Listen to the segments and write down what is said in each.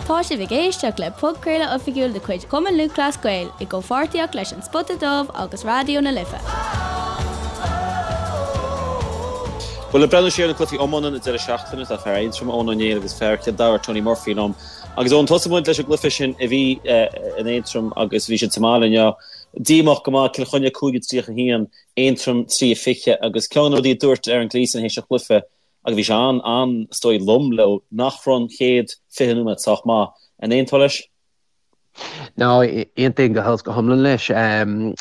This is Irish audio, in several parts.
Tá sibh ag éisteacht le podchraoladh oifigiúil de chuid Chumann Lúthchleas Gael i gcomhpháirtíocht leis An Spota Dubh agus Raidió na Life. Bhuel, ag breathnú siar ar na cluichí iomána an deireadh seachtaine, tá fear Aontroma, Eoin Ó Néill agus fear Chill Dara, Tony Murphy liom. Agus Eoin, tosóidh muid leis an gcluiche sin a bhí in Aontroim agus bhí siad sa mbaile inniu. Díomách go maith, Cill Chainnigh 5-31, Aontroim 3-20 agus ceann de na rudaí a dúirt Aaron Gleeson théis an chluiche, Agus bhí sé an, an, is dóigh lom leo nach raibh an chéad 20 nóiméad sách maith. An aontófá leis? No, aontaím go huile is go hiomlán leis.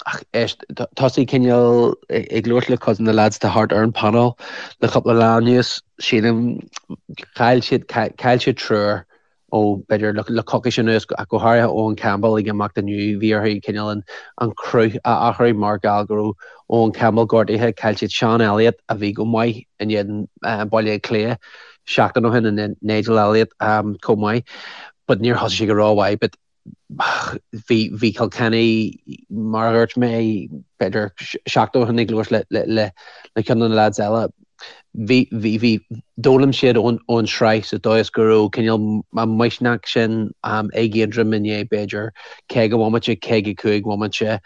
Ach éist, tosaigh cineál ag labhairt le cuid de na lads atá thart ar an panel le cúpla lá anuas, sílim, chaill siad, chaill siad triúr ó b'fhéidir le coicís anuas, ach go háirithe Eoghan Campbell ag imeacht inniu, bhí orthu cineál an cruth a athrú mar gheall go raibh Eoghan Campbell gortaithe. Chaill siad Seán Elliott a bhí go maith in éadan Baile Átha Cliath seachtain ó shin, and Nigel Elliott chomh maith but níor thosaigh sé go rómhaith but bhí bhí Kilkenny mar a dhúirt mé b'fhéidir seachtain ó shin ag labhairt le le le ceann de na lads eile bhí bhí bhí d'fhoghlaim siad ón ón sraith sa dóigh is go raibh cineál an misneach sin ag Aontroim inné b'fhéidir 50 bhomaite 55 bhomaite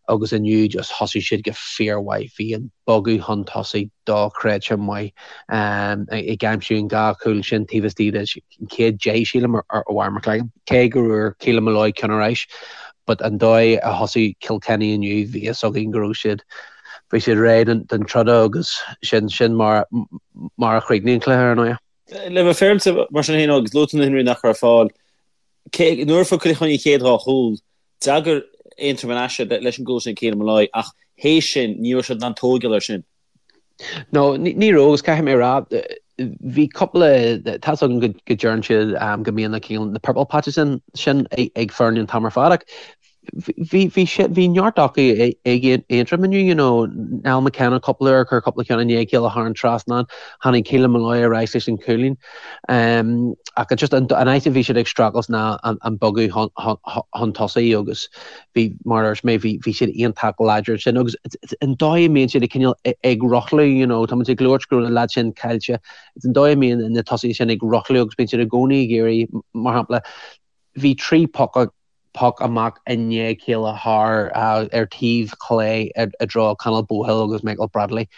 agus inniu just thosaigh siad go fíormhaith bhí an bogadh chun tosaigh dochreidte maith ag aimsiú an dhá chúl sin taobh istigh de an chéad 10 sílim ar Mhair McLagan, cé go bhfuair Keelan Molloy ceann ar ais but an dóigh a thosaigh Kilkenny inniu bhí fhios againn go raibh siad bhí siad réidh don troda agus sin sin mar mar a chríochnaigh an cluiche ar ndóigh. Le bheith féaráilte mar sin féin agus luaigh tú na himreoirí nach raibh ar fáil, cé nuair a fuair Cill Chainnigh an chéad dhá chúl, d'fhreagair Aontroim ar ais leis an gcúl sin ag Keelan Molloy ach théis sin ní raibh siad in ann tógáil air sin. No, ní raibh agus caithfidh mé a rá, bhí cúpla, tá's agam go deireann siad go mbíonn na cineál, na purple patches sin, sin ag foirne an t-am ar fad ach bhí, bhí sé, bhí neart acu ag Aontroim inniu, you know, Niall McKenna cúpla uair, chuir cúpla ceann i ndiaidh a chéile thar an trasnán, tháinig Keelan Molloy ar ais leis an chúilín. Ach just an áit a bhí siad ag streachailt ná an bogadh chun tosaigh agus bhí, mar a dúirt mé, bhí, bhí siad iontach láidir ansin agus an dóigh a mbíonn siad ag cineál ag rothlú, you know, tá muid ag labhairt go raibh na lads sin caillte, it's an dóigh a mbíonn na tosaithe sin ag rothlú agus bíonn siad i gcónaí ag iarraidh, mar shampla, bhí 3 poc, poc amach i ndiaidh a chéile thar, ar taobh chlé i dtreo Conall Bohill agus Michael Bradley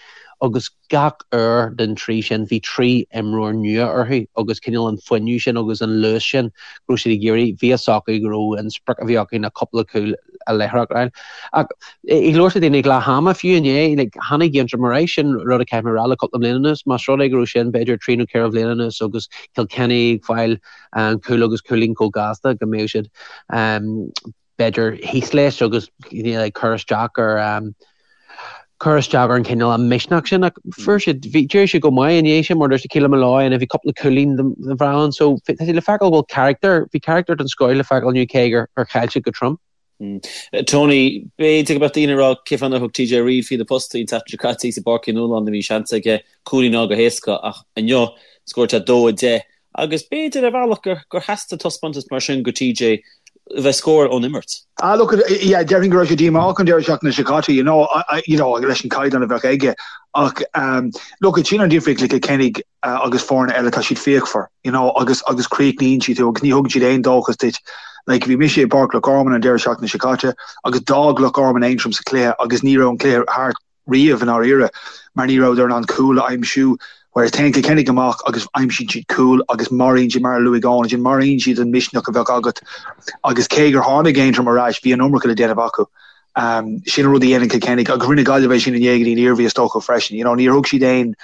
agus gach uair den trí sin bhí trí imreoir nua orthu agus cineál an fuinneamh sin agus an luas sin go raibh siad ag iarraidh, bhí fhios acu go raibh an sprioc a bhí acu ná cúpla cúl láithreach a fháil. Ach ag labhairt le daoine ag leath ama fiú inné, like, tháinig Aontroim ar ais, sin rud a caithfidh mé a rá le cúpla bliain anuas, más rud é go raibh sin b'fhéidir trí nó ceithre bhliain anuas agus Kilkenny ag fáil cúl agus cúilín chomh gasta go mbeadh siad b'fhéidir thíos leis agus ag cur isteach ar cur isteach ar an cineál an misneach sin ach fuair siad bhí d'éirigh siad go maith i ndiaidh sin mar dúirt Keelan Molloy and bhí cúpla cúilín den bhreá ann so tá sé le feiceáil go bhfuil character bhí character den scoth le feiceáil inniu cé gur gur chaill siad go trom. Tony, b'fhéidir go mbeadh daoine ag rá cén fáth nár thug TJ Reid faoi na postaí an tseachtain seo caite i bPáirc Uí Nualláin bhí seans aige cúilín a fháil go héasca ach inniu scóráil sé 2-10 Agus b'fhéidir ar bhealach gur theastaigh taispeántas mar sin go TJ a bheith ag scóráil ón imirt. Ah look, yeah, déarfainn go raibh sé díomách an deireadh seachtaine seo caite, you know, you know, leis an caighdeán a bheadh aige. Ach um, look, sin an difríocht le Kilkenny uh, agus foirne eile, tá siad fíochmhar, you know, agus, agus críochnaíonn siad tú agus ní thugann siad aon dóchas duit. Like, bhí mise i bPáirc Loch Garman an deireadh seachtaine seo caite agus d'fhág Loch Garman Aontroim sa chluiche agus ní raibh an cluiche thart riamh i ndáiríre mar ní rabhadar in ann cúl a aimsiú whereas téann Kilkenny amach agus aimsíonn siad cúl agus maraíonn siad, mar a luaigh Eoin ansin, maraíonn siad an misneach a bheadh agat agus cé gur tháinig Aontroim ar ais bhí an iomarca le déanamh acu. Sin an rud a dhéanann Kilkenny agus rinne Gaillimh é sin inné go dtí an Iarmhí is dócha freisin. You know, níor thug siad aon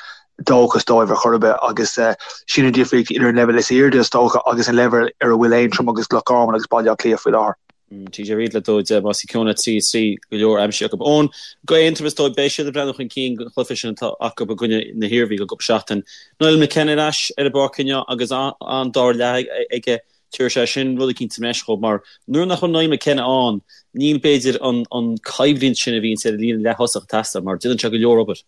dóchas dóibh ar chor ar bith agus sin an difríocht idir an leibhéal is airde is dócha agus an leibhéal ar a bhfuil Aontroim agus Loch Garman agus Baile Átha Cliath faoi láthair. TJ Reid le 2-10 más í ceann 3 3 go leor aimsithe acu. Eoin, go Aontroim is dóigh beidh siad ag breathnú chun cinn don chluiche sin atá acu i gcoinne na hIarmhí i gcúpla seachtain. Niall McKenna ar ais ar an bpáirc inniu agus an dara leath aige tabharfaidh sé sin rud eicínt sa mbreis dhóibh mar nuair nach bhfuil Niall McKenna ann níl b'fhéidir an an coimhlint sin a bhíonns ar an líne leath-thosach ag teastáil mar déanann sé go leor obair.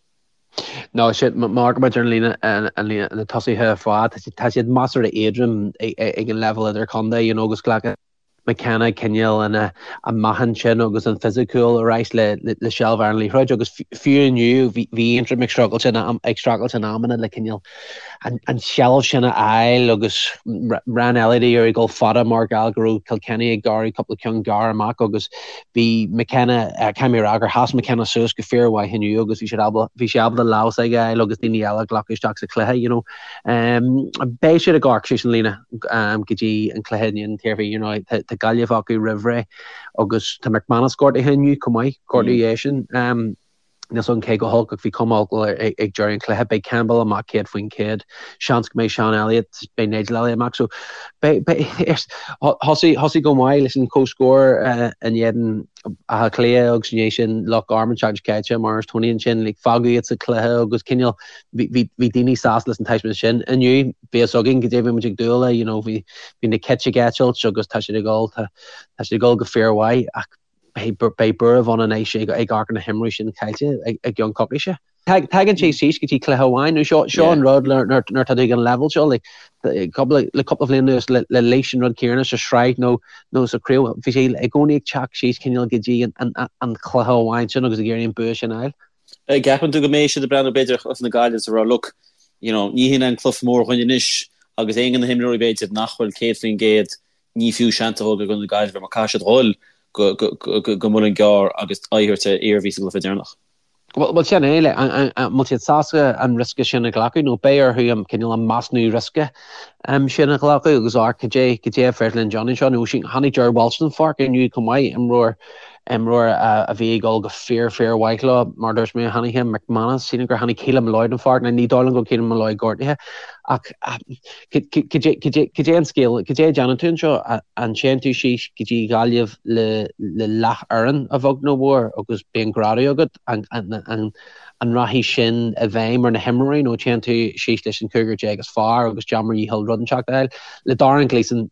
No, sin, mar go mb'fhéidir an líne, an líne, na tosaithe ar fad, tá siad measartha éadrom ag an leibhéal idirchontae, you know, agus glacann McKenna cineál an an meáchan sin agus an fisiciúil ar ais le le seilbh ar an liathróid agus fiú inniu bhí bhí Aontroim ag streachailt in ag streachailt in amanna le cineál. an tseilbh sin a fháil agus Ryan Elliott ag iarraidh dul fada mar gheall go raibh Kilkenny ag gearradh cúpla ceann gearr amach agus bhí McKenna, caithfidh mé a rá gur sheas McKenna suas go fíormhaith inniu agus bhí siad ábalta, bhí sé ábalta lámh s'aige a fháil agus daoine eile a ghlacadh isteach sa chluiche, you know. Beidh siad ag amharc síos an líne go dtí an cluiche in éadan an tIarmhí, you know, tá Gaillimh acu roimh ré agus tá McManus gortaithe inniu chomh maith, gortú eisean. Níl 's agam cé chomh holc ach bhí cuma olc air ag deireadh an chluiche. Beidh Campbell amach 100%. Seans go mbeidh Sean Elliott, beidh Nigel Elliott amach. So beidh, beidh, thosaigh, thosaigh go maith leis an comhscór in éadan Átha Cliath agus i ndiaidh sin Loch Garman seachtain seo caite mar is Tony ansin like fágadh iad sa chluiche agus cineál bhí, bhí, bhí daoine sásta leis an taispeántas sin. Inniu bhí fhios againn goidé a bhí muid ag dúil le, you know, bhí, bhí na cait ag eitilt agus tá siad ag dul, tá, tá siad ag dul go fíormhaith ach Beidh buaireamh ann anois ag amharc ar na himreoirí sin caillte i gceann coicíse. Tagann sé síos go dtí cluiche amháin. Nó seo an rud nuair atá tú ag an leibhéal seo, le cúpla bliain anuas le Laois an rud céanna sa sraith nó sa chraobh, bhí sé i gcónaí ag teacht síos cineál go dtí an cluiche amháin sin agus ag iarraidh an bua sin a fháil. Ceapann tú go mbeidh siad ag breathnú b'fhéidir ar chluiche na Gaillimhe is ag rá look, you know, ní hin an cluiche mór dhúinn anois agus aon de na himreoirí b'fhéidir nach bhfuil 100% ní fiú seans a thógáil i gcoinne na Gaillimhe mar caithfidh siad dhul go Muileann gCearr agus aghaidh a thabhairt ar Iarmhí sa gcluiche deireanach. Bhuel, sin é, an bhfuil siad sásta an riosca sin a ghlacadh nó beidh orthu an cineál an measúnú riosca sin a ghlacadh agus amharc cad é cad é a féidir linn déanamh anseo. Nó tháinig Ger Walsh den pháirc inniu chomh maith, imreoir imreoir a bhí ag dul go fíor fíor mhaith leo, mar a dúirt mé, tháinig McManus, sílim gur tháinig Keelan Molloy den pháirc, ní dóigh liom go bhfuil Keelan Molloy gortaithe ach Cad é an scéal? Cad é a déanann tú anseo? An téann tú síos go dtí Gaillimh le leathfhoireann a bheag nó a mhór agus bíonn greadadh agat? An rachaidh sin i bhfeidhm ar na himreoirí nó téann tú síos leis an chúigear déag is fearr agus déan bhur ndícheall rud inteacht a fháil? Le Darren Gleeson,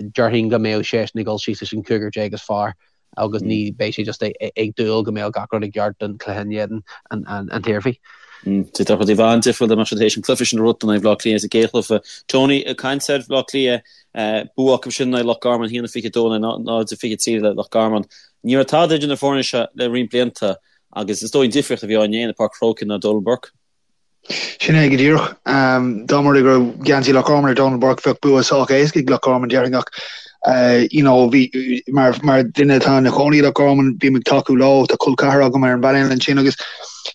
déarfainn go mbeadh seisean ag dul síos leis an chúigear déag is fearr. agus ní beidh sé just ag dúil go mbeadh gach rud i gceart don chluiche in éadan an tIarmhí. Tá rudaí an-difriúil dá mbeadh siad théis an cluiche sin a bhuachaint in aghaidh Bhaile Átha Cliath sa gcéad chluiche. Tony, ag caint ar Bhaile Átha Cliath, bua acu sin in aghaidh Loch Garman, 1-22 in aghaidh 0-23 le Loch Garman. Ní raibh tada idir na foirne seo le roinnt blianta agus is dóigh an difríocht a bhí á ndéanamh i bPáirc an Chrócaigh ná Donal Burke. Sin é go díreach. Dá mba rud é go raibh geansaí Loch Garman ar Donal Burke bheadh bua sách éasca ag Loch Garman déarfainn ach you know bhí mar mar duine atá ina chónaí i Loch Garman bím ag tacú leo tá col ceathar agam ar an bpainéal ansin agus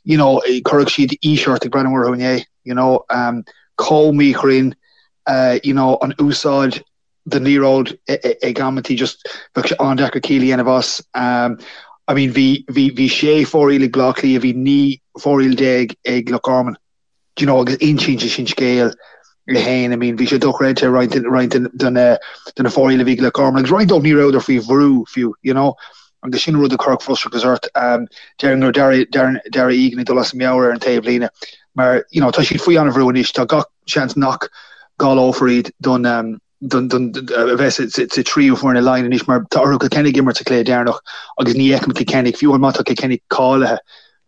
you know chuirfeadh siad aois ort ag breathnú orthu inné you know chomh míchruinn you know an úsáid den liathróid ag amantaí just bheadh sé an-deacair ciall a dhéanamh as. I mean bhí bhí bhí sé fóraoil ag Bleá Cliath, bhí 19 fóraoil ag Loch Garman. Do you know agus insíonn sé sin scéal é féin. I mean bhí sé dochreidte roinnt roinnt de na de na fóraoil a bhí ag Loch Garman agus roinnt dóibh ní rabhadar faoi bhrú fiú, you know. Agus sin rud a chuirfeadh frustrachas ort. Déarfainn go raibh Darragh Darragh Egan ag dul as a meabhair ar an taobhlíne mar you know tá siad faoi an-bhrú anois, tá gach seans nach gcáileofar iad don don don a bheith sa tríú foireann i Laighin anois mar tá orthu Kilkenny ag imirt sa chluiche deireanach agus ní fheicim Kilkenny, fiú má tá Kilkenny cáilithe,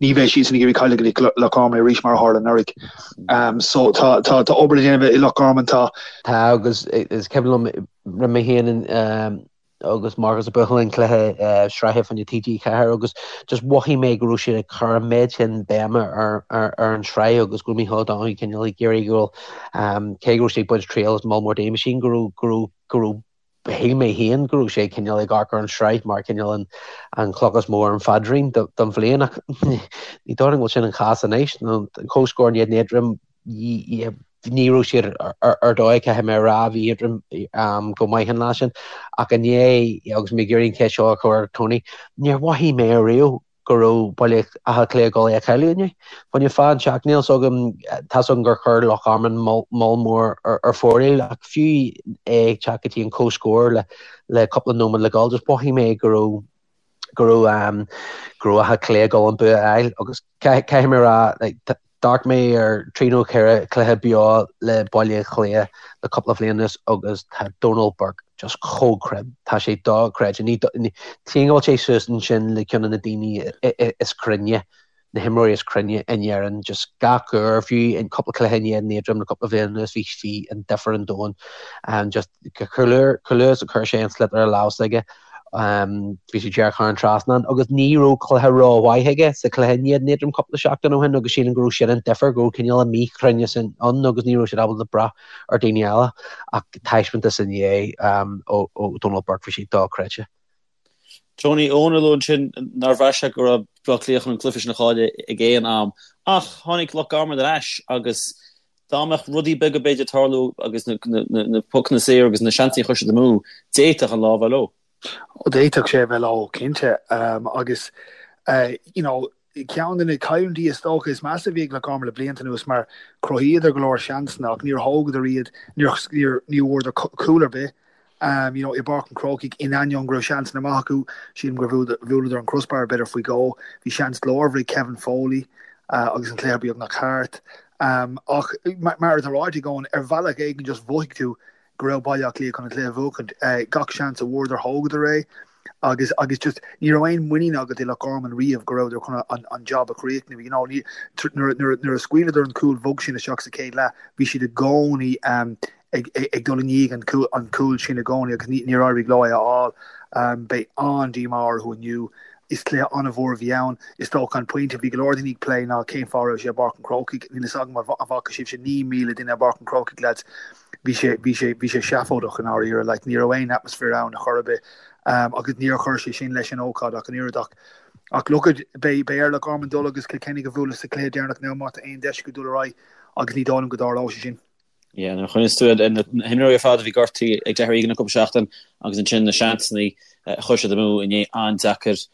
ní bheidh siadsan ag iarraidh cailleadh go Loch Garman arís mar a tharla anuraidh. So tá tá tá obair le déanamh i Loch Garman tá. Tá agus is cuimhin liom rinne mé féin agus Marcus ag buachan an cluiche sraithe fá choinne TG4 agus just mhothaigh mé go raibh siad ag cur an méid sin béime ar ar an sraith agus go raibh Mícheál Ó Donoghue cineál ag iarraidh go raibh cé go raibh sé ag baint triail as moll mór daoine sin go raibh go raibh go raibh shíl mé féin go raibh sé cineál ag amharc ar an sraith mar cineál an an cloch is mó ar an phaidrín don bhliain ach ní dóigh liom go bhfuil sin an chás anois nó an comhscór in éadan Aontroim ní raibh siad ar dóigh, caithfidh mé a rá, bhí Aontroim go maith an lá sin. Ach inné, agus mé ag iarraidh an cheist seo a chur ar Tony, níor mhothaigh mé ariamh go raibh Baile Átha Cliath ag dul é a chailleadh inné. Fá choinne fáth inteacht, níl 's agam, tá's agam gur chuir Loch Garman moll mór ar fóraoil, ach fiú é ag teacht go dtí an comhscór le cúpla nóiméad le dhul, just mhothaigh mé go raibh go raibh go raibh Áth Cliath ag dul an bua a fháil agus caithfidh mé a rá like, d'amharc mé ar trí nó ceithre chluiche beo le Baile Átha Cliath le cúpla bliain anuas agus tá Donal Burke just chomh cruinn. Tá sé dochreidte. Ní tchím go bhfuil sé suas ansin le ceann de na daoine is cruinne na himreoirí is cruinne in Éirinn just gach uair, fiú in cúpla cluiche in éadan Aontroim le cúpla bliain anuas bhí bhí an difear an domhain and just chomh luath is a chuir sé an sliotar i lámh s'aige. Bhí sé díreach thar an trasnán agus ní raibh cluiche rómhaith aige sa chluiche in éadan Aontroim cúpla seachtain ó shin agus sílim go raibh sin an difear, go raibh cineál an míchruinneas ann agus ní raibh siad ábalta brath ar daoine eile ach taispeántas inné ó Donal Burke bhí sé dochreidte. Tony, Eoin a luaigh ansin nár bhraith sé go raibh Baile Átha Cliath chun an cluiche sin a chailleadh ag aon am ach tháinig Loch Garman ar ais agus dá mbeadh rudaí beaga b'fhéidir ag tarlú agus na pocanna saora agus na seansanna a chuir siad amú, d'fhéadfadh an lá a bheith leo. D'fhéadfadh sé a bheith leo, cinnte. Agus you know ceann de na cailliúintí is dócha is measa a bhí ag Loch Garman le blianta anuas mar chruthaíodar go leor seansanna ach níor thógadar iad, níor ní bhfuaireadar cúl ar bith you know i bPáirc an Chrócaigh in ainneoin go raibh seansanna maith acu. Sílim gur bhuaileadar an crossbar b'fhéidir faoi dhó. Bhí seans glórmhar ag Kevin Foley agus an cluiche beagnach thart. Ach mar atá ráite ag Eoin, ar bhealach éigin just mhothaigh tú go raibh Baile Átha Cliath chun an cluiche a bhuachaint. Gach seans a bhfuaireadar, thógadar é agus agus just ní raibh aon muinín agat i Loch Garman riamh go rabhadar chun an an job a chríochnú. You know, ní, nuair, nuair, nuair a scaoileadar an cúl bhog sin isteach sa chéad leath, bhí siad i gcónaí ag, ag, ag dul i ndiaidh an cúl, an cúl sin i gcónaí agus ní, níor éirigh leo é a fháil. Beidh an-díomá orthu inniu. Is cluiche an-mhór a bhí ann. Is dócha an pointe a bhí go leor daoine ag plé ná cén fáth a raibh sé i bPáirc an Chrócaigh. Níl a fhios agam an bhfaca sibhse 9,000 duine i bPáirc an Chrócaigh, lads. Bhí sé, bhí sé, bhí sé seafóideach i ndáiríre. Like, ní raibh aon atmaisféar ann a chor ar bith. Agus níor chuir sé sin leis an ócáid ach an oiread. Ach, ach look at, beidh, beidh ar Loch Garman dul agus Cill Chainnigh a bhualadh sa chluiche deireanach now má tá aon deis acu dul ar aghaidh agus ní dóigh liom go dtarlóidh sé sin. Yeah, nuair a chuimhníos tú ar na himreoirí ar fad a bhí gortaithe ag Darragh Egan le cúpla seachtain agus ansin na seansanna a chuir siad amú inné an-deacair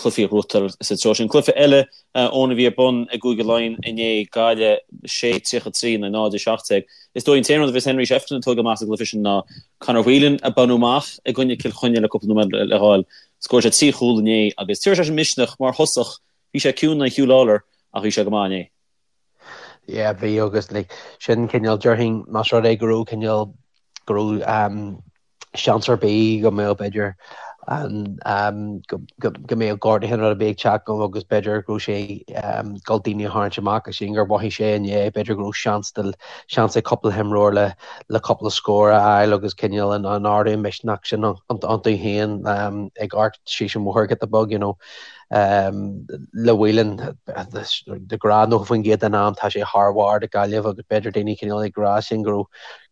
cluichí a ghnóthachtáil sa treo sin. Cluiche eile Eoin a bhí ar bun i gCúige Laighean inné, Gaillimh 6-33 in aghaidh 0-17. Is dóigh an t-aon rud a bheas Henry Shefflin ag tógáil amach as an gcluiche sin ná Conor Whelan a baineadh amach i gcoinne Cill Chainnigh le cúpla nóiméad le ghabháil. Scóráil sé 3 chúl inné agus tabharfaidh sé sin misneach mar thosach. Bhí sé ciúin in aghaidh Huw Lawlor ach bhí sé go maith inné. Yeah, bhí agus like, sin cineál déarfainn más rud é go raibh cineál go raibh um, seans ar bith go mbeadh b'fhéidir an um, go, go, go mbeadh gortuithe nó rud ar bith ag teacht go agus b'fhéidir go raibh sé um, ag dul daoine a tharraingt amach agus sin gur mhothaigh sé inné b'fhéidir go raibh seans de seans ag cúpla himreoir le le cúpla scór a fháil agus cineál an, an ardú misneach sin iontu féin um, ag amharc síos an bhóthar giota beag, you know. Le Whelan, de ghnáth 90% den am tá sé thar bharr do Gaillimh agus b'fhéidir daoine cineál ag rá sin go raibh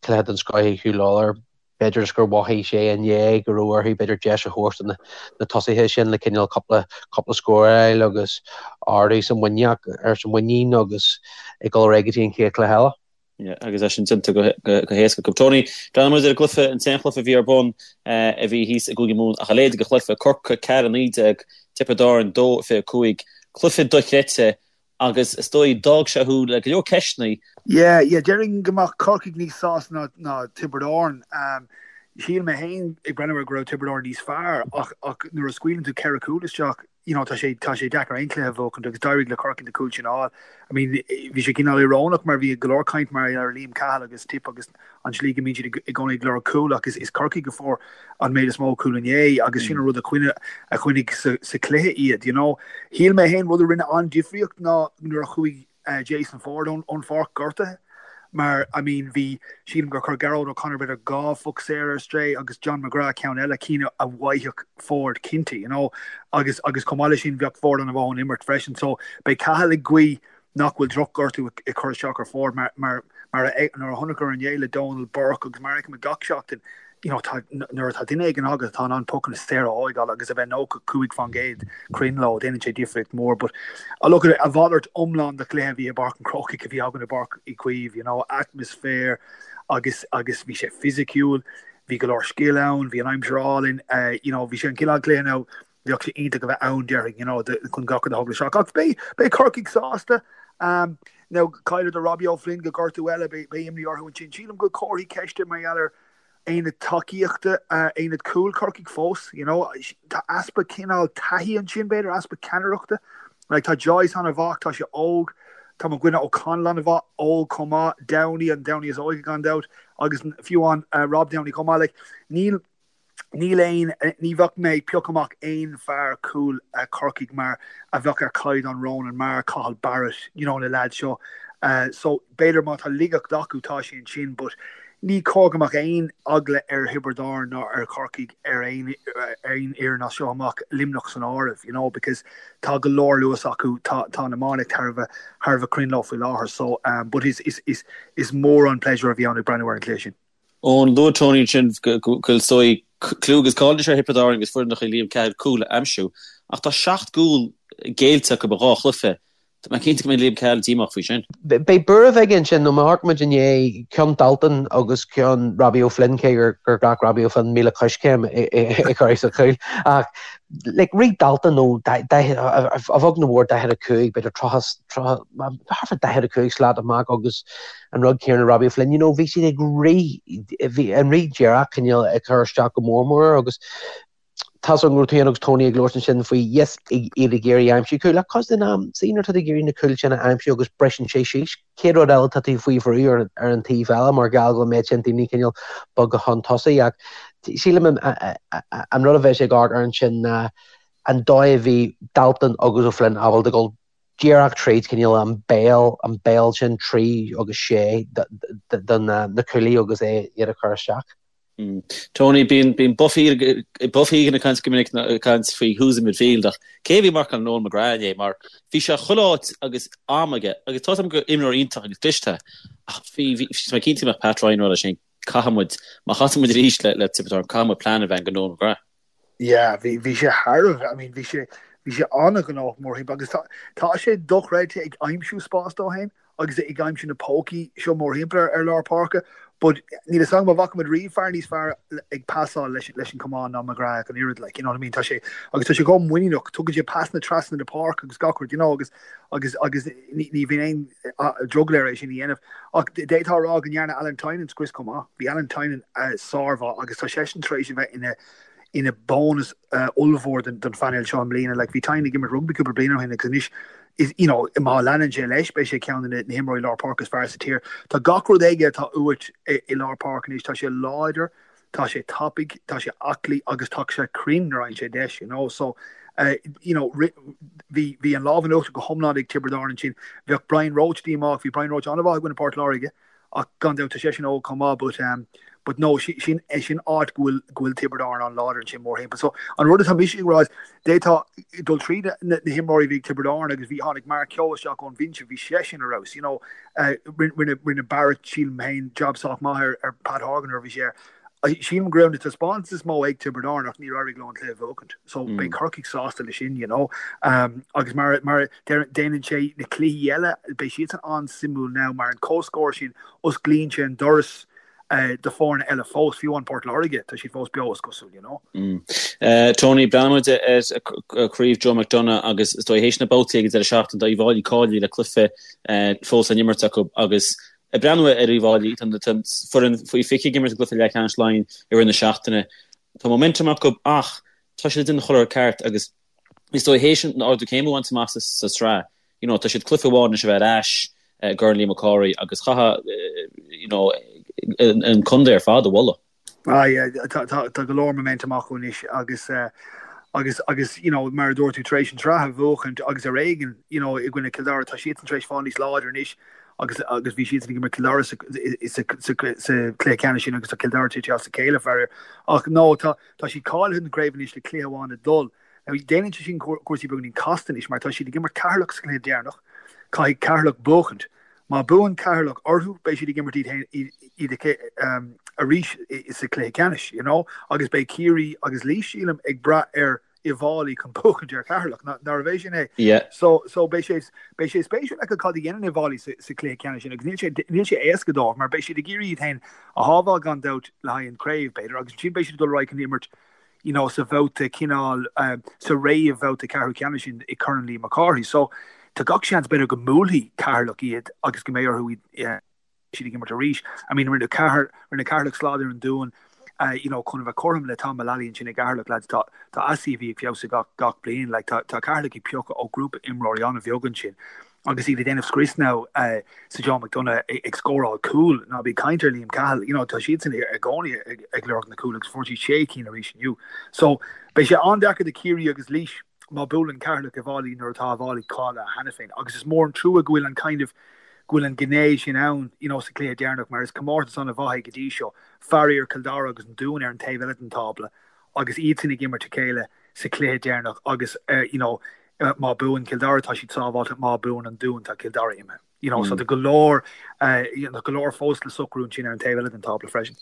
cluiche den scoth ag Huw Lawlor. B'fhéidir is gur mhothaigh sé inné go raibh orthu b'fhéidir deis a thabhairt do na tosaithe sin le cineál cúpla cúpla scór a fháil agus ardú sa muineach ar sa muinín agus ag dul ar aghaidh go dtí an chéad chluiche eile. Agus é sin déanta go héasca acu. Tony, breathnóidh muid ar an gcluiche, an t-aon chluiche a bhí ar bun a bhí thíos i gCúige Mumhan ach a leithéid de chluiche, Corcaigh 4-19, Tiobraid Árann 2-25. Cluiche dochreidte agus is dóigh d'fhág sé thú le go leor ceisteanna. Yeah, yeah, déarfainn go mbeadh Corcaigh níos sásta ná ná Tiobraid Árann. Shíl mé féin ag breathnú air go raibh Tiobraid Árann níos fearr ach ach nuair a scaoileann tú ceithre chúl isteach, you know, tá sé, tá sé deacair aon chluiche a bhuachaint agus d'éirigh le Corcaigh na cúil sin a fháil. I mean, bhí sé cineál íorónach mar bhí go leor caint mar ar Liam Cahill agus Tip agus an tslí go mbíonn siad i gcónaí ag lorg cúl ach is, is Corcaigh a fuair an méid is mó cúl inné agus sin an rud a choinnigh, a choinnigh sa, sa chluiche iad, you know. Shíl mé féin rud a rinne an-difríocht ná nuair a chuaigh Jason Forde ón pháirc gortaithe mar I mean bhí, sílim gur chuir Gearóid O'Connor b'fhéidir 2 phoc saor ar strae agus John McGrath ceann eile, cinn a bhfaigheadh Forde cinnte you know agus agus chomh maith leis sin bheadh Forde an-mhaith ón imirt freisin so beidh Cahill ag guí nach bhfuil drochghortú ag cur isteach ar Forde mar mar mar a nuair a chonaiceamar inné le Donal Burke agus mar a fheicimid gach seachtain you know, tá, nuair atá duine éigin agat atá in ann pocanna saora a thóigeáil agus a bheith 95% cruinn leo, déanann sé difríocht mhór. But uh, look, a mhalairt iomlán de chluiche a bhí i bPáirc an Chrócaigh a bhí againn i bPáirc Uí Chaoimh, you know, atmaisféar agus agus bhí sé fisiciúil, bhí go leor scil ann, bhí an aimsir álainn, uh, you know, bhí sé an cineál cluiche now bheadh sé iontach a bheith ann déarfainn, you know, chun gach rud a thógáil isteach. Ach beidh, beidh Corcaigh sásta. Um, now, chailleadar Robbie O'Flynn go gortú eile, beidh, beidh imní orthu ansin. Sílim go bhfuil comharthaí ceiste mar gheall ar aonad tacaíochta, uh, aonad cúil Corcaigh fós, you know, tá easpa cineál taithí ansin, b'fhéidir, easpa ceannaireachta. Like, tá Joyce an-mhaith, tá sé óg, tá mo dhuine O'Connell an-mhaith, óg chomh maith, Downey, an Downey is óige gan dabht, agus fiú an uh, Rob Downey chomh maith, like, níl Níl aon, ní bheadh mé ag piocadh amach aon fear cúil Corcaigh mar a bheadh ar chaighdeán Ronan Maher, Cathal Barrett, you know na leaids seo. So b'fhéidir má tá laigeacht acu tá sé ansin but. ní cóir go mbeadh aon eagla ar Thiobraid Árann ná ar Chorcaigh ar aon aon fhoireann as seo amach, Luimneach san áireamh, you know, because tá go leor luas acu, tá tá an iománaíocht thar a bheith thar a bheith cruinn leo faoi láthair. So, um, but is is is is mór an pléisiúr a bhí ann ag breathnú ar an chluiche sin. Eoin, luaigh Tony ansin go bhfuil is dóigh clú agus cáil anois ar Thiobraid Árann agus foireann de Liam Cahill cúil a aimsiú, ach tá 7 gcúl géillte acu i dhá chluiche. Tá mé cinnte go mbeidh Liam Cahill díomách faoi sin. Beidh buaireamh aige ansin nó má amharcann muid inné, ceann Dalton agus ceann Robbie O'Flynn, cé gur ghlac Robbie O'Flynn 1,000 coiscéim é a chur sa chúl. Ach like rith Dalton ó a bheag nó a mhór 45, b'fhéidir 30, 30, thart fá 45 slat amach agus an rud céanna Robbie O'Flynn, you know, bhí siad ag rith, bhí an rith díreach cineál ag cur isteach go mór mór agus tá's agam go raibh tú féin agus Tony ag labhairt ansin faoi yes, iad ag iarraidh aimsiú cúil ach cuid den am, see nuair atá tú ag iarraidh na cúil sin a aimsiú agus briseann sé síos, chéad rud eile tá tú faoi bhrú ar, ar an taobh eile mar gheall go bhfuil an méid sin daoine cineál bogtha chun tosaigh ach sílim an, an rud a bheidh sé ag amharc air ansin ná an dóigh a bhí Dalton agus O'Flynn ábalta dul díreach tríd cineál an béal, an béal sin 3 agus 6 do na cúlaithe agus é iad a chur isteach. Tony, bíonn bíonn Buff Buff Egan ag caint go minic ag caint faoi who's in midfield ach cé a bhí ag marcáil Noel McGrath inné mar bhí sé chuile áit agus am aige agus tá 'fhios agam gur imreoir iontach agus cliste é ach bhí bhí mé cinnte go mbeadh Pat Ryan ag rá leis féin caithfidh muid má chasann muid arís le le Tiobraid Árann caithfidh muid plean a bheith againn do Noel McGrath. Yeah, bhí, bhí sé thar a bheith, I mean, bhí sé, bhí sé an-ghnóthach mórthimpeall agus tá, tá sé dochreidte ag aimsiú spás dó féin agus ag aimsiú na pócaí seo mórthimpeall ar, ar lár páirce but níl fhios agam an bhfaca muid riamh fear níos fearr ag pasáil leis, leis an camán ná McGrath ach an oiread, like, you know what I mean, tá sé, agus tá sé chomh muiníneach, tugann sé pasanna trasna na páirce agus gach rud, you know, agus, agus, agus ní, ní bhíonn aon drogall air é sin a dhéanamh. Ach d'fhéadfá a rá go ndearna Alan Tynan scrios chomh maith. Bhí Alan Tynan sármhaith agus tá seisean tar éis a bheith ina ina bónas ollmhór don phainéal seo i mbliana. Like, bhí Tynan ag imirt rugbaí cúpla bliain ó shin agus anois is, you know, má leanann sé leis beidh sé ceann de na himreoirí lár páirce is fearr sa tír. Tá gach rud aige atá uait i lár páirce anois. Tá sé láidir, tá sé tapaidh, tá sé aclaí agus tá sé cruinn nuair a fhaigheann sé deis, you know. So, you know, bhí, bhí an lámh in uachtar go hiomlán ag Tiobraid Árann ansin. Bheadh Brian Roche díomách, bhí Brian Roche an-mhaith i gcoinne Port Láirge ach gan dabht tá seisean óg chomh maith but, um, but no, sin, sin áit go bhfuil, go bhfuil Tiobraid Árann an-láidir ansin mórthimpeall. So, an rud atá mise ag rá is, d'fhéadfá dul tríd na, na himreoirí a bhí ag Tiobraid Árann agus bhí, tháinig Mark Kehoe isteach ón bhinse, bhí seisean ar fheabhas, you know, uh, rinne, rinne Barrett, sílim féin, job sách maith ar, ar Pat Horgan nuair a bhí sé air. Sílim go raibh na taispeántais is mó ag Tiobraid Árann ach níor éirigh leo an cluiche a bhuachaint. So beidh Corcaigh sásta leis sin, you know. Um, agus mar, mar déanann sé na cluichí eile, beidh siadsan an-suimiúil now mar an comhscór sin, osclaíonn sé an doras uh, do foirne eile fós, fiú amháin Port Láirge, tá siad fós beo is cosúil, you know. Mm. Uh, Tony, breathnaíonn muid ar Chraobh Joe McDonagh agus is dóigh théis na babhtaí ag an deireadh seachtaine tá Uíbh Fhailí cáilithe le cluiche uh, fós á n-imirt acu agus Ag breathnú ar Uíbh Fhailí, tá an foireann faoi 20 ag imirt i gcluiche leathcheannais Laighean i rith na seachtaine. Tá momentum acu ach tá siad ag déanamh chuile rud ceart agus is dóigh théis an ardú céime a bhaint amach sa tsraith, you know, tá siad cluiche amháin anois a bheith ar ais i gCorn Liam Mac Cárthaigh agus chaithfeá, you know, an contae ar fad a mholadh. Ah yeah, tá tá go leor momentum acu anois agus agus agus you know mar a dúirt tú tar éis an tsraith a bhuachaint agus ar éigean you know i gcoinne Cill Dara tá siadsan tar éis fáil níos láidre anois agus agus bhí siadsan ag imirt Cill Dara sa sa sa sa cluiche ceannais sin agus tá Cill Dara tite as a chéile faraor. Ach no tá tá siad cáilithe don chraobh anois le cluiche amháin le dul. Now déanann sé sin cúrsaí beagáinín casta anois mar tá siad ag imirt Ceatharlach sa chluiche deireanach, caithfidh Ceatharlach buachaint. Má buann Ceatharlach orthu, beidh siad ag imirt iad féin iad arís sa chluiche ceannais, you know, agus beidh Ciarraí agus Laois, sílim, ag brath ar Uíbh Fhailí chun buachaint ar Cheatharlach, nárbh é sin é? Yeah. So, so beidh sé, beidh sé spéisiúil feiceáil cad a dhéanann Uíbh Fhailí sa, sa chluiche ceannais sin agus níl sé, níl sé éasca dóibh mar beidh siad ag iarraidh iad féin a shábháil gan dabht le haghaidh an chraobh, b'fhéidir, agus ansin beidh siad ag dul ar aghaidh chun imirt you know, sa bhabhta cineál, sa réamhbhabhta ceathrú ceannais sin i Corn Liam Mac Cárthaigh. So, tá gach seans b'fhéidir go mbuailfidh Ceatharlach iad agus go mbeidh orthu iad siad ag imirt arís. I mean, rinne Ceathair, rinne Ceatharlach slad ar an Dún, you know, chun a bheith cothrom le Tom Mullally ansin i gCeatharlach, lads, tá, tá a CV ag feabhsú gach, gach bliain, like, tá, tá Ceatharlach ag piocadh ó grúpa imreoirí an-bheag ansin. Agus iad ag déanamh scrios now sa Joe McDonagh ag scóráil cúl, ná bí ag caint ar Liam Cahill, you know, tá siadsan i gcónaí ag lorg na cúl agus fuair siad sé cinn arís inniu. So, beidh sé an-deacair do Ciarraí agus Laois má buaileann Ceatharlach Uíbh Fhailí nuair atá Uíbh Fhailí cáilithe cheana féin. Agus is mór an trua go bhfuil an kind of. go bhfuil an ghné sin ann, you know, sa chluiche deireanach mar is comórtas an-mhaith é go dtí seo. Faraor, Cill Dara agus an Dún ar an taobh eile den tábla agus iadsan ag imirt a chéile sa chluiche deireanach agus, you know, má buann Cill Dara tá siad sábháilte, má buann an Dún tá Cill Dara imithe. You know, so tá go leor, you know, go leor fós le socrú ansin ar an taobh eile den tábla freisin.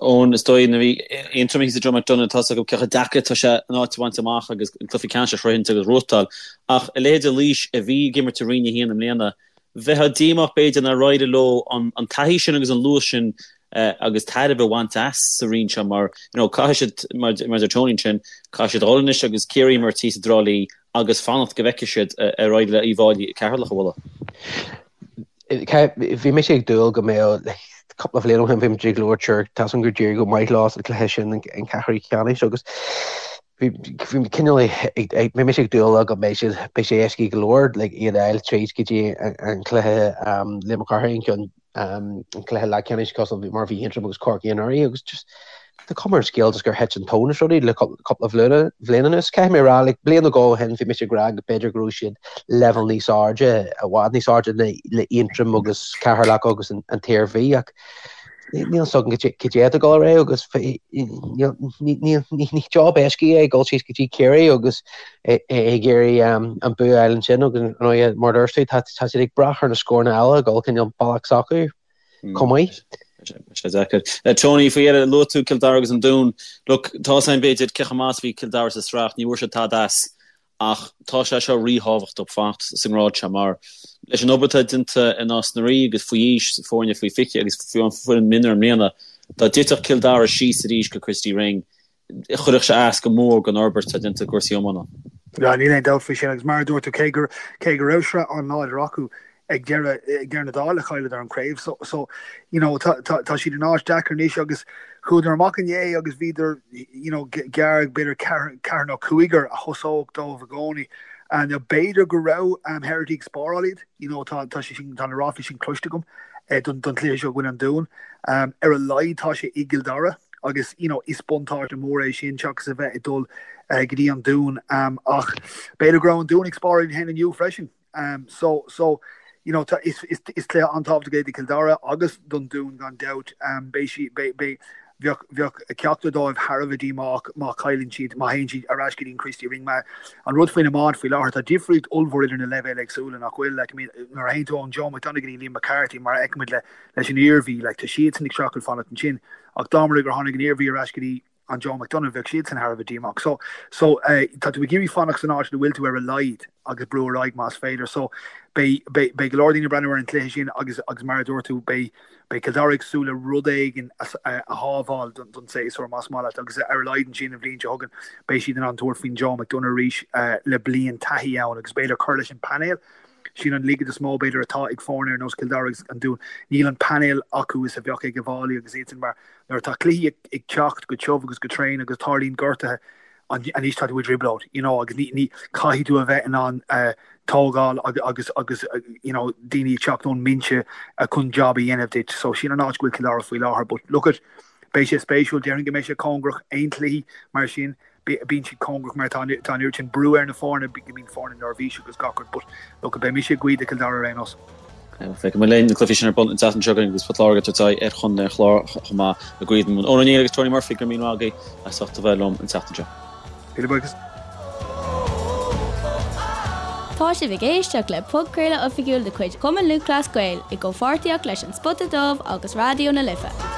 Eoin, is dóigh nuair a bhí Aontroim thíos i Joe McDonagh tá a fhios acu cé chomh deacair atá sé an áit a bhaint amach agus an cluiche ceannais a shroichint agus a ghnóthachtáil. Ach a leithéid de Laois a bhí ag imirt i Roinn 1 i mbliana, bheifeá díomách b'fhéidir nár éirigh leo an taithí sin agus an luas sin agus tairbhe a bhaint as sa roinn seo mar you know caithfidh siad, mar a deir Tony ansin, caithfidh siad a dhul anois agus Ciarraí a imirt thíos i dTrá Lí agus fanacht go bhfeicfidh siad ar éirigh le Uíbh Fhailí Ceatharlach a bhualadh. Bhí mise ag dúil go mbeadh cúpla bhliain ó shin bhí muid ag labhairt ar tá a fhios agam gur d'éirigh go maith leo sa chluiche sin an ceathrú ceannais agus bhí cineál bhí mise ag dúil go mbeidh siad beidh sé éasca go leor like iad a fháil tríd go dtí an cluiche Liam Mac Cárthaigh an ceann an cluiche leathcheannais cosúil mar a bhí Aontroim agus Corcaigh anuraidh agus just tá cuma ar an scéal just gur thit an tóin as rudaí le cúpla bhliain anuas. Caithfidh mé a rá, like, bliain nó dhó ó shin bhí mise ag rá go b'fhéidir go raibh siad leibhéal níos airde, i bhfad níos airde le Aontroim agus Ceatharlach agus an tIarmhí ach níl a fhios agam cad é atá ag dul ar aghaidh agus ní job éasca é dul síos go dtí Ciarraí agus ag iarraidh an bua a fháil ansin agus ar ndóigh mar a dúirt tú tá siad ag brath ar na scóranna eile ag dul cineál bealach s'acu chomh maith. Sé deacair. Tony, faoi dheireadh, luaigh tú Cill Dara agus an Dún. Look, tá a fhios againn b'fhéidir cé chomh maith is a bhí Cill Dara sa sraith, ní bhfuair siad tada as ach tá sé seo ríthábhachtach fanacht sa ngrád seo mar leis an obair atá déanta i Nás na Rí agus faoi aois, foirne faoi 20 agus fiú an foireann mionúir i mbliana, dá dtitfeadh Cill Dara síos arís go Christy Ring, chuirfeadh sé as go mór don fhorbairt atá déanta i gcúrsaí iomána. Yeah, níl aon dabht faoi sin agus mar a dúirt tú, cé gur, cé go raibh sraith an-láidir acu ag deireadh, ag deireadh na dála chailleadar an craobh so, so you know, tá, tá, tá siad in áit deacair anois agus chuadar amach inné agus bhíodar, you know, gearr b'fhéidir ceathrar, ceathrar nó cúigear a thosódh dóibh i gcónaí. And now b'fhéidir go raibh um, Herity ag spáráil iad, you know, tá, tá sé sin, tá na ráflaí sin cloiste agam eh, don, don chluiche seo i gcoinne an Dúin. Um, ar a laghad tá sé i gCill Dara. agus you know is buntáiste mór é sin seachas a bheith ag dul go dtí an Dún ach b'fhéidir go raibh an Dún ag spáráil iad féin inniu freisin so so you know tá is is is cluiche an-tábhachtach é do Chill Dara agus don Dún gan dabht beidh sí beidh beidh bheadh bheadh ceachtar dóibh thar a bheith díomách má chailleann siad má théann siad ar ais go dtí an Christy Ring mar an rud faoin iomáint faoi láthair tá difríocht ollmhór idir na leibhéil éagsúla nach bhfuil like I mean nuair a théann tú ón Joe McDonagh go dtí Liam McCarthy mar a fheicimid le leis an Iarmhí, like, tá siadsan ag streachailt fanacht ansin, ach dá mba rud é gur tháinig an Iarmhí ar ais go dtí an Joe McDonagh, bheadh siadsan thar a bheith díomách. So, so, eh, tá tú ag iarraidh fanacht san áit ina bhfuil tú ar a laghad agus brú ar aghaidh más féidir. So, beidh, beidh, beidh go leor daoine ag breathnú ar an chluiche sin agus, agus mar a dúirt tú, beidh, beidh Cill Dara ag súil le rud éigin a, a, a shábháil don, don séasúr más maith leat agus ar a laghad ansin an bhliain seo chugainn beidh siad in ann tabhairt faoin Joe McDonagh arís, eh, le bliain taithí ann agus b'fhéidir cur leis an painéal. Sin an laige is mó, b'fhéidir, atá ag foirne ar nós Cill Dara agus an Dún. Níl an painéal acu is a bheadh ag Uíbh Fhailí agus iadsan mar nuair atá cluichí ag teacht go tiubh agus go tréan agus tarlaíonn gortuithe, anois tá tú i dtrioblóid, you know, agus ní, ní, caithfidh tú a bheith in ann tógáil agus, agus, you know, daoine ag teacht ón mbinse chun job a dhéanamh duit. So sin an áit go bhfuil Cill Dara faoi láthair. But look at, beidh sé spéisiúil, déarfainn go mbeidh sé cóngarach aon chluichí mar sin. Bíonn siad cóngarach mar tá an oiread sin brú ar na foirne, go mbíonn foirne neirbhíseach agus gach rud but look beidh mise ag guí do Chill Dara ar aon nós. Feicfidh muid linn na cluichí sin ar bun an tseachtain seo chugainn agus Port Láirge ag tabhairt aghaidh ar Chontae an Chláir chomh maith i gCraobh na Mumhan. Eoin Ó Néill agus Tony Murphy, go raibh míle maith agaibh as ucht a bheith liom an tseachtain seo. Míle buíochas. Tá sibh ag éisteacht le podchraoladh oifigiúil de chuid Chumann Lúthchleas Gael i gcomhpháirtíocht leis An Spota Dubh agus Raidió na Life.